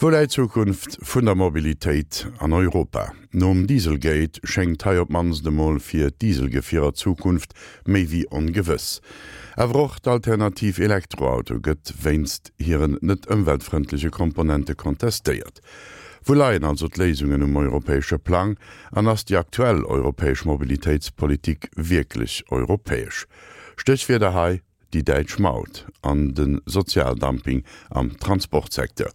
Wou läit d'Zukunft vun der Mobilitéit an Europa? Nom Dieselgate schéngt hei op d'mannst emol fir d'Dieselgefierer d'Zukunft méi wéi ongewëss. Awer och d'Alternativ Elektroauto gëtt wéinst hiren net ëmweltfrëndleche Komponente kontestéiert. Wou leien also d'Léisungen um europäesche Plang an ass déi aktuell europäesch Mobilitéitspolitik wierklech europäesch? Stéchwierder hei, déi däitsch Maut an de Sozialdumping am Transportsecteur.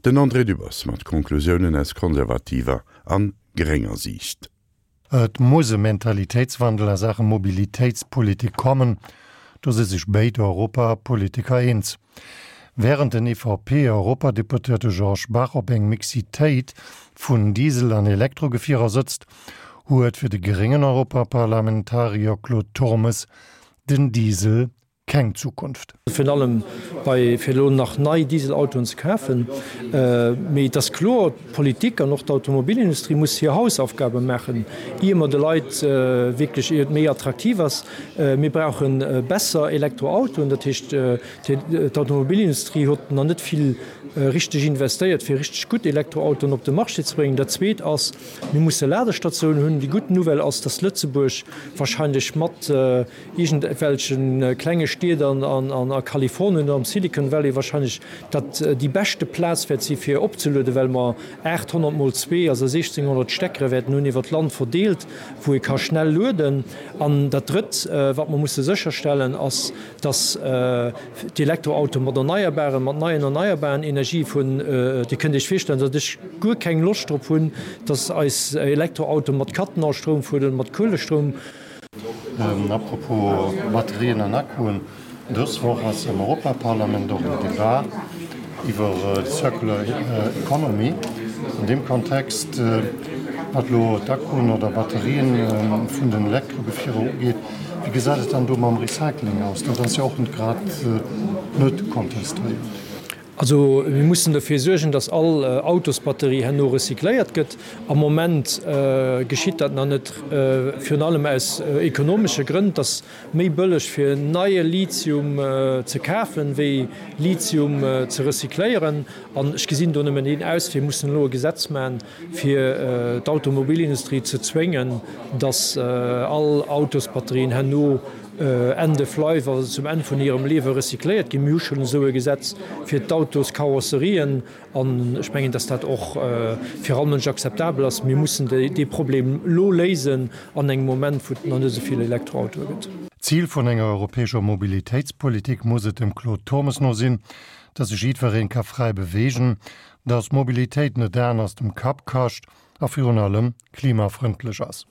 Den André Dübbers mat Konklusiounen aus konservativer an grénger Siicht. Et muss e Mentalitéitswandel a Saache Mobilitéitspolitik kommen, do si sech béid Europapolitiker eens. Wärend den EVP-Europadeputéierte Georges Bach op eng Mixitéit vun Diesel an Elektrogefierer sëtzt, huet fir de gréngen Europaparlamentarier Claude Turmes Den Diesel keng Zukunft. Virun allem bei fir elo nach nei Dieselautoen ze kafen. Mee et ass kloer, d'Politik an och d'Automobilindustrie muss hir Hausaufgabe maachen, ier mer de Leit wierklech, ier et méi attraktiv ass. Mir brauche besser Elektroautoen. Dat heescht, d'Automobilindustrie huet nach net vill richteg investéiert, fir richteg gutt Elektroautoen op de Marché ze bréngen. Dat Zweet ass, Mir musse Ladestatiounen hunn. Déi gutt Nouvelle ass, dass Lëtzebuerg wahrscheinlech mat iergendwelche klenge Stied an a Kalifornien oder am Silicon Valley wahrscheinlech dat déi beschte Plaz wäert si fir opzelueden, well mer 800 mol zwee, also 1600 Steckere wäerten hunn iwwer d'Land verdeelt, wou ee ka schnell lueden. An dat Drëtt, wat mer musse sécherstellen, ass, dass d'Elektroautoe mat erneierbaren, mat neien erneierbaren Energie vun, Dir kënnt Iech virstellen, datt ech guer keng Loscht drop hunn, datt eis Elektroautoe mat Kattenaustroum fueren oder mat Kuelestroum. Apropos Batterien an Akkuen, Dës Woch ass am Europaparlament och en Debat iwwer d'Circular Economy. An deem Kontext, wat elo d'Akkuen oder Batterien vun den Elektrogefierer ugeet, Wéi gesäit et dann do mam Recycling aus? Dat ass jo och net grad net kontestéiert. Also mir mussen derfir suergen, datt all Autosbatterie herno recycléiert gëtt. Am Moment geschitt dat nach net, virun allem aus ekonomesche Grënn. Et ass méi bëlleg fir neie Lithium ze kafen, wéi Lithium ze recycléieren. An ech gesinn do nëmmen een Auswee, Mir mussen elo e Gesetz maachen, fir d'Automobilindustrie ze zwéngen, datt all Autosbatterien herno end of life, also zum Enn vun hirem Liewe recycléiert ginn. Mir hu schonn esou e Gesetz fir d'Autoskarosserien an ech mengen, datt dat och fir all Mënsch akzeptabel ass. Mir mussen dee Problem elo léisen an engem Moment, wou et nach net esou vill Elektroautoe gëtt. Zil vun enger europäescher Mobilitéitspolitik muss et dem Claude Turmes no sinn, datt sech jiddweree ka fräi beweegen, Dass Mobilitéit net d'Aen aus dem Kapp kascht a virun allem klimafrëndlech ass.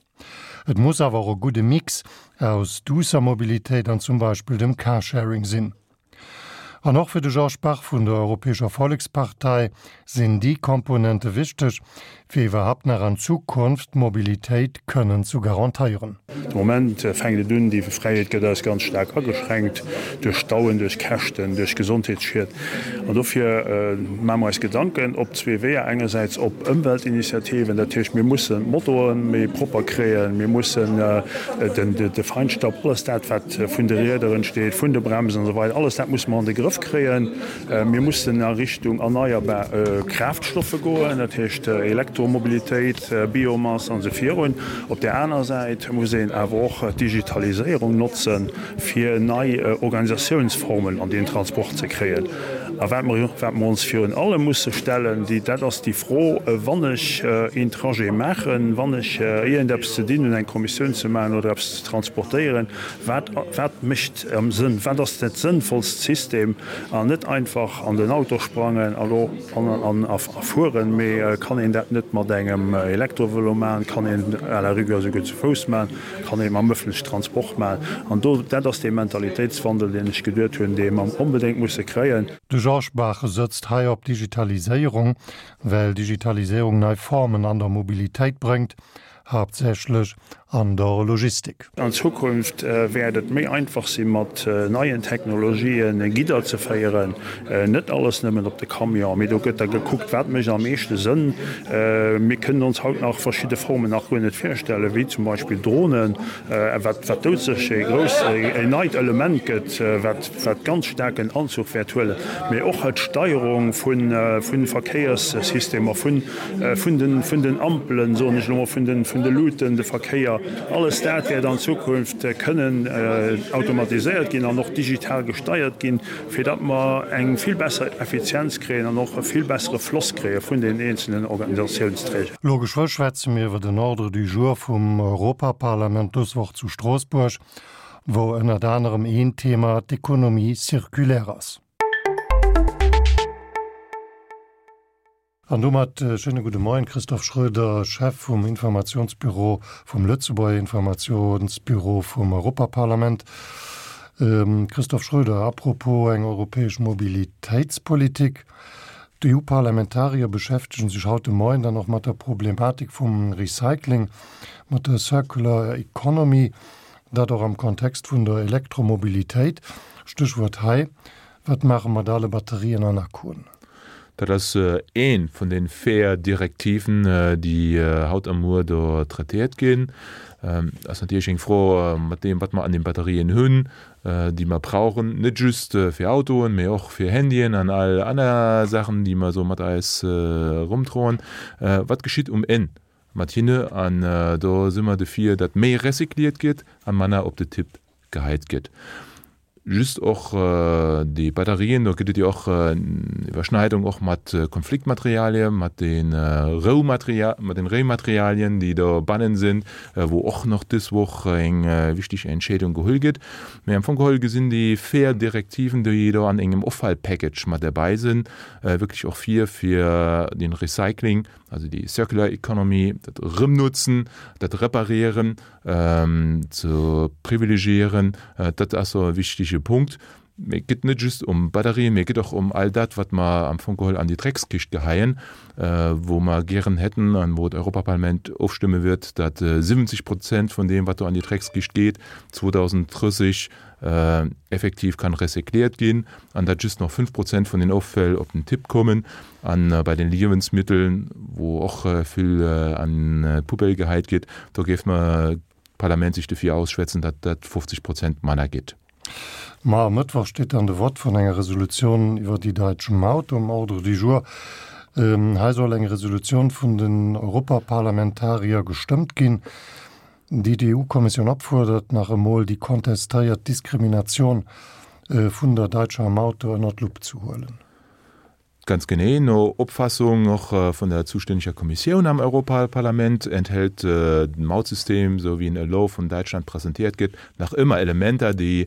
Et muss awer och e gudde Mix aus duusser Mobilitéit an zum Beispill dem Carsharing sinn. An och fir de Georges Bach vun der Europäescher Vollekspartei sinn déi Komponente wichteg, fir iwwerhapt nach an Zukunft d'Mobilitéit kënnen zu garantéieren. De Moment fänkt et un, déi Fräiheet gëtt eis ganz staark ageschränkt duerch Stauen, duerch Käschten, duerch Gesondheetsschied. An dofir maache mer eis Gedanken op zwee Weeër, engersäits op Ëmweltinitiativen, dat heescht mir mussen d'Motoe méi propper kréien, mir mussen de Feinstaub, alles dat wat vun de Rieder entsteet, vun de Bremsen an esou weider, alles dat musse mer an de Grëff kréien. Mir mussen a Richtung erneierbar Kraaftstoffe goen, dat heescht Elektromobilitéit, Biomass an esou virun. Op där aner Säit muss een awer och d'Digitaliséierung notzen, fir nei Organisatiounsformen an deen Transport ze kréien. A wat mer wat mer ons virun allem musse stellen, déi dat ass déi Fro, Wann ech een Trajet maachen, wann ech iergendeppes ze dinn hunn, eng Kommissioun ze maachen oder eppes ze transportéieren, Wat, wat mécht am Sënn? Wat ass dat sënnvollst System? An net einfach an den Auto sprangen a lo an a fueren, mee kann een dat net mat engem Elektrovëlo maachen? Kann een à la rigueur esouguer zu Fouss maachen? Kann een mam ëffentlechen Transport maachen? An do, dat ass dee Mentalitéitswandel, deen ech geduet hunn, dee mer onbedéngt musse kréien. De Georges Bach sëtzt hei op Digitaliséierung, well Digitaliséierung nei Formen an der Mobilitéit bréngt, haaptsächlech. An der Logistik. An Zukunft wäert et méi einfach si mat neien Technologien Gidder ze féieren. Net alles nëmmen op de Camion, mee do gëtt da gekuckt, wat mécht am meeschte Sënn. Mir kënnen ons haut nach verschidde Formen nach guer net virstellen, wéi zum Beispill Dronen, wat doudsécher ee grouss, en neit Element gëtt, wat wat ganz staark en Anzuch wäert huelen, mee och d'Steierung vu Verkéierssystemer, vun vun den Ampelen, soen ech elo mol, vun de Luuten, de Verkéier, alles dat wäert an Zukunft kënnen automatiséiert ginn an och digital gesteiert ginn, fir datt mer eng vill besser Effizienz kréien an och e vill bessere Floss kréie vun den eenzelnen Organisationsträger. Elo geschwë schwätze mir iwwer den Ordre du jour vum Europaparlament dës Woch zu Stroossbuerg, wou ënnert anerem een Thema d'Economie circulaire ass. An domat e schéine gudde Moien, Christophe Schroeder, Chef vum Informationsbüro vum Lëtzebuerger Informationsbüro vum Europaparlament. Christophe Schroeder, à propos eng europäesch Mobilitéitspolitik, D'EU-Parlamentarier beschäftegen sech haut de Moien dann och mat der Problematik vum Recycling, mat der Circular Economy, dat och am Kontext vun der Elektromobilitéit. Stéchwuert hei, Wat maache mat ale Batterien an Akkuen? Dat ass ee vun de véier Direktiven, déi haut a muer do traitéiert ginn. Ass natierlech eng Fro mat deem, wat mer an den Batterien hunn, déi mer brauchen, net just fir Autoen, mee och fir Handyen an all aner Saachen, déi mer esou mat eis erumdroen. Wat geschitt um Enn mat hinne? An do si mer dofir, datt méi recycliert gëtt a manner op de Tipp geheit gëtt. Just och déi Batterien, do gëtt et jo och Iwwerschneidung och mat Konfliktmaterialien, mat de Roumateria, mat den Réimaterialien, déi do bannen sinn, wou och nach dës Woch eng wichteg Entscheedung geholl gëtt. Mee am Fong geholl gesinn déi véier Direktiven, déi do an engem Offallpackage mat derbäi sinn, wierklech och vir, fir den Recycling, also déi Circular Economy, dat Erëmnutzen, dat Reparieren, ze privilegiéieren. Dat ass e wichtige Punkt. Mee et geet net just ëm Batterien, mee et geet och ëm all dat, wat mer am Fong geholl an déi Dreckskischt geheien, wou mer gären hätten an wou d'Europaparlament ofstëmme wird, datt 70 Prozent vun deem, wat do an déi Dreckskischt geet, 2030 effektiv kann recycliert ginn an datt just nach 5 Prozent vun den Offäll op den Tipp kommen. An bei den Liewensmitteln, wou och vill an d'Poubelle geheit gétt, do géif mer d'Parlament sech dofir ausschwätzen, datt dat 50 Prozent manner gétt. Mar e Mëttwoch steet dann de Vott vun enger Resolutioun iwwer déi däitsch Maut um Ordre du jour. Hei soll eng Resolutioun vun den Europaparlamentarier gestëmmt ginn, déi d'EU-Kommissioun opfuerdert, nach emol déi kontestéiert Diskriminatioun vun der däitscher Maut do ënner d'Lupp ze huelen. Ganz genee, no Opfassung och vun der zustänneger Kommissioun am Europaparlament enthält den Mautsystem, esou wéi en elo vun Däitschland presentéiert gëtt, nach ëmmer Elementer, déi,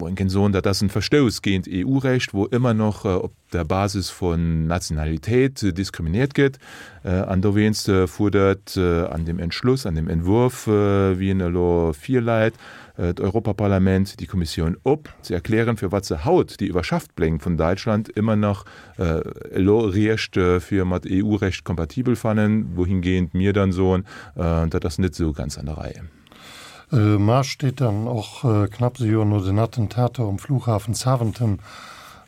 wou een kéint soen, dat ass en Verstouss géint EU-Recht, wou ëmmer nach op der Basis vun Nationalitéit diskriminiert gëtt. An dowéinst fuerdert an deem Entschluss, an deem Entwurf, wéi en elo virläit, d'Europaparlament déi Kommissioun op, ze erklären, firwat se haut déi iwwerschafft Pläng vun Däitschland ëmmer nach elo eréischt fir mat EU-Recht kompatibel fannen, wouhingehend mir dann soen, dat ass net esou ganz an der Rei. Mar steet dann och knapps e Joer no den Attentater um Flughafen Zaventem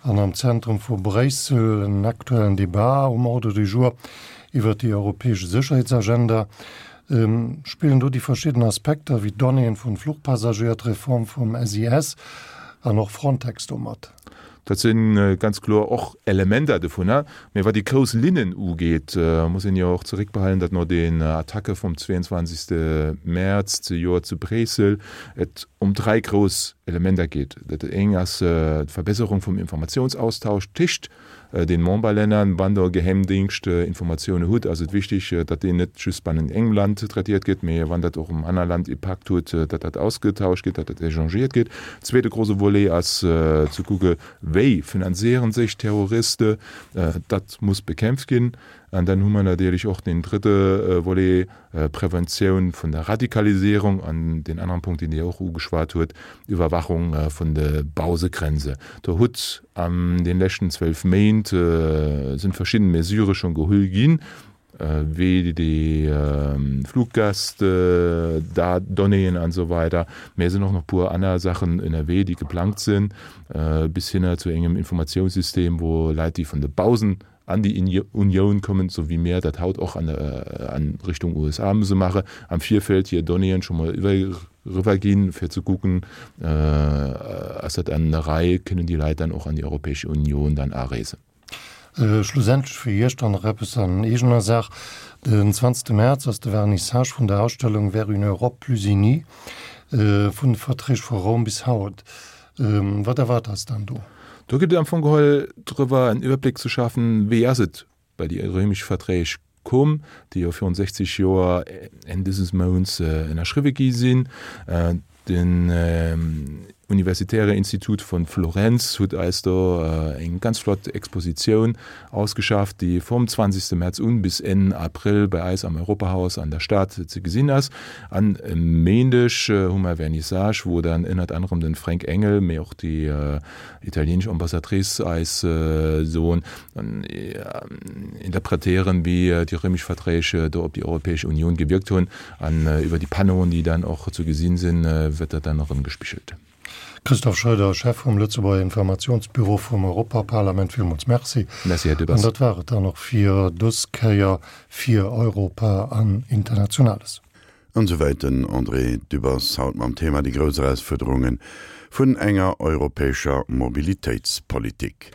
an am Zentrum vu Bréissel en aktuellen Debat um Ordre du jour iwwert déi europäesch Sécherheetsagenda. Spillen do déi verschidden Aspekter wéi d'Donnéeën vun Fluchpassagéier, d'Reform vum SIS an och Frontex do mat? Dat si ganz kloer och Elementer dovunner. Mee wat déi grouss Linnen ugeet, muss een jo och zeréckbehalen, datt no den Attacke vum 22. Mäerz zejoert zu Bréissel et ëm dräi grouss Elementer geet. Dat eng ass d'Verbesserung vum Informatiounsaustausch téscht den Memberlänner, wann der Geheimdingscht Informatioune hutt, ass et wichtig, datt deen net just bannent engem Land traitéiert gëtt, mee wann dat och um aner Land Impakt huet, datt dat ausgetauscht gëtt, datt dat échangéiert gëtt. Zweete grouse Volet ass ze kucke wéi finanziere sech Terroriste, dat muss bekämpft ginn. An dann hu mer natierlech och deen drëtte Volet, Preventioun vun der Radikalisierung an deen aneren Punkt, deen Dir och ugeschwat huet, Iwwerwachung vun de Bausegrenze. Do hutt an den leschten 12 Méint sinn verschidden Mesurë schonn gehull ginn. Wéi déi Fluggäst, Donnéeën an esou weider. Mä et sinn och nach e puer aner Saachen ënnerwee, déi geplangt sinn, bis hinner zu engem Informatiounssystem, wou Leit, déi vun de bausen an déi Unioun kommen, esou wéi mir dat haut och an Richtung USA musse maachen, am Virfeld hir Donnéeën scho mol eriwwerginn, fir ze kucken, ass dat an der Rei, kënnen déi Leit dann och an déi Europäesch Unioun dann areesen. Schlussendlech fir Iech dann nach eppes an eegener Saach, Den 20 Mäerz ass de Vernissage vun der Ausstellung Vers une Europe plus unie, vun de Verträg vu Roum bis haut. Wat erwaart eis dann do? Do geet et am Fong geholl drëwer en Iwwerbléck ze schafen, wéi ass et bei déi réimesch Verträg komm, déi jo virun 60 Joer Enn dëses Mounts ënnerschriwwe gi sinn. Den Universitäre Institut von Florenz huet eis do eng ganz flott Expositioun ausgeschafft, déi vum 20 März un bis Enn April bei eis am Europahaus an der Stad ze gesinn ass. An e Méindeg hu mer Vernissage, wou dann ënnert anerem den Fränk Engel, mee och déi italienesch Ambassadrice eis soen, interpretéieren, wéi déi römesch Verträg do op déi Europäesch Unioun gewierkt hunn. An iwwer déi Panneauen, déi dann och ze gesinn sinn, wëtt dat dann erëm gespigelt. Christophe Schroeder, Chef vum Lëtzebuerger Informationsbüro vum Europaparlament, villmools Merci. Merci, Här Dübbers. An dat war et dann och fir dës Kéier fir Europa an Internationales. An esouwäit den André Dübbers haut mam Thema Déi grouss Erausfuerderunge vun enger europäescher Mobilitéitspolitik.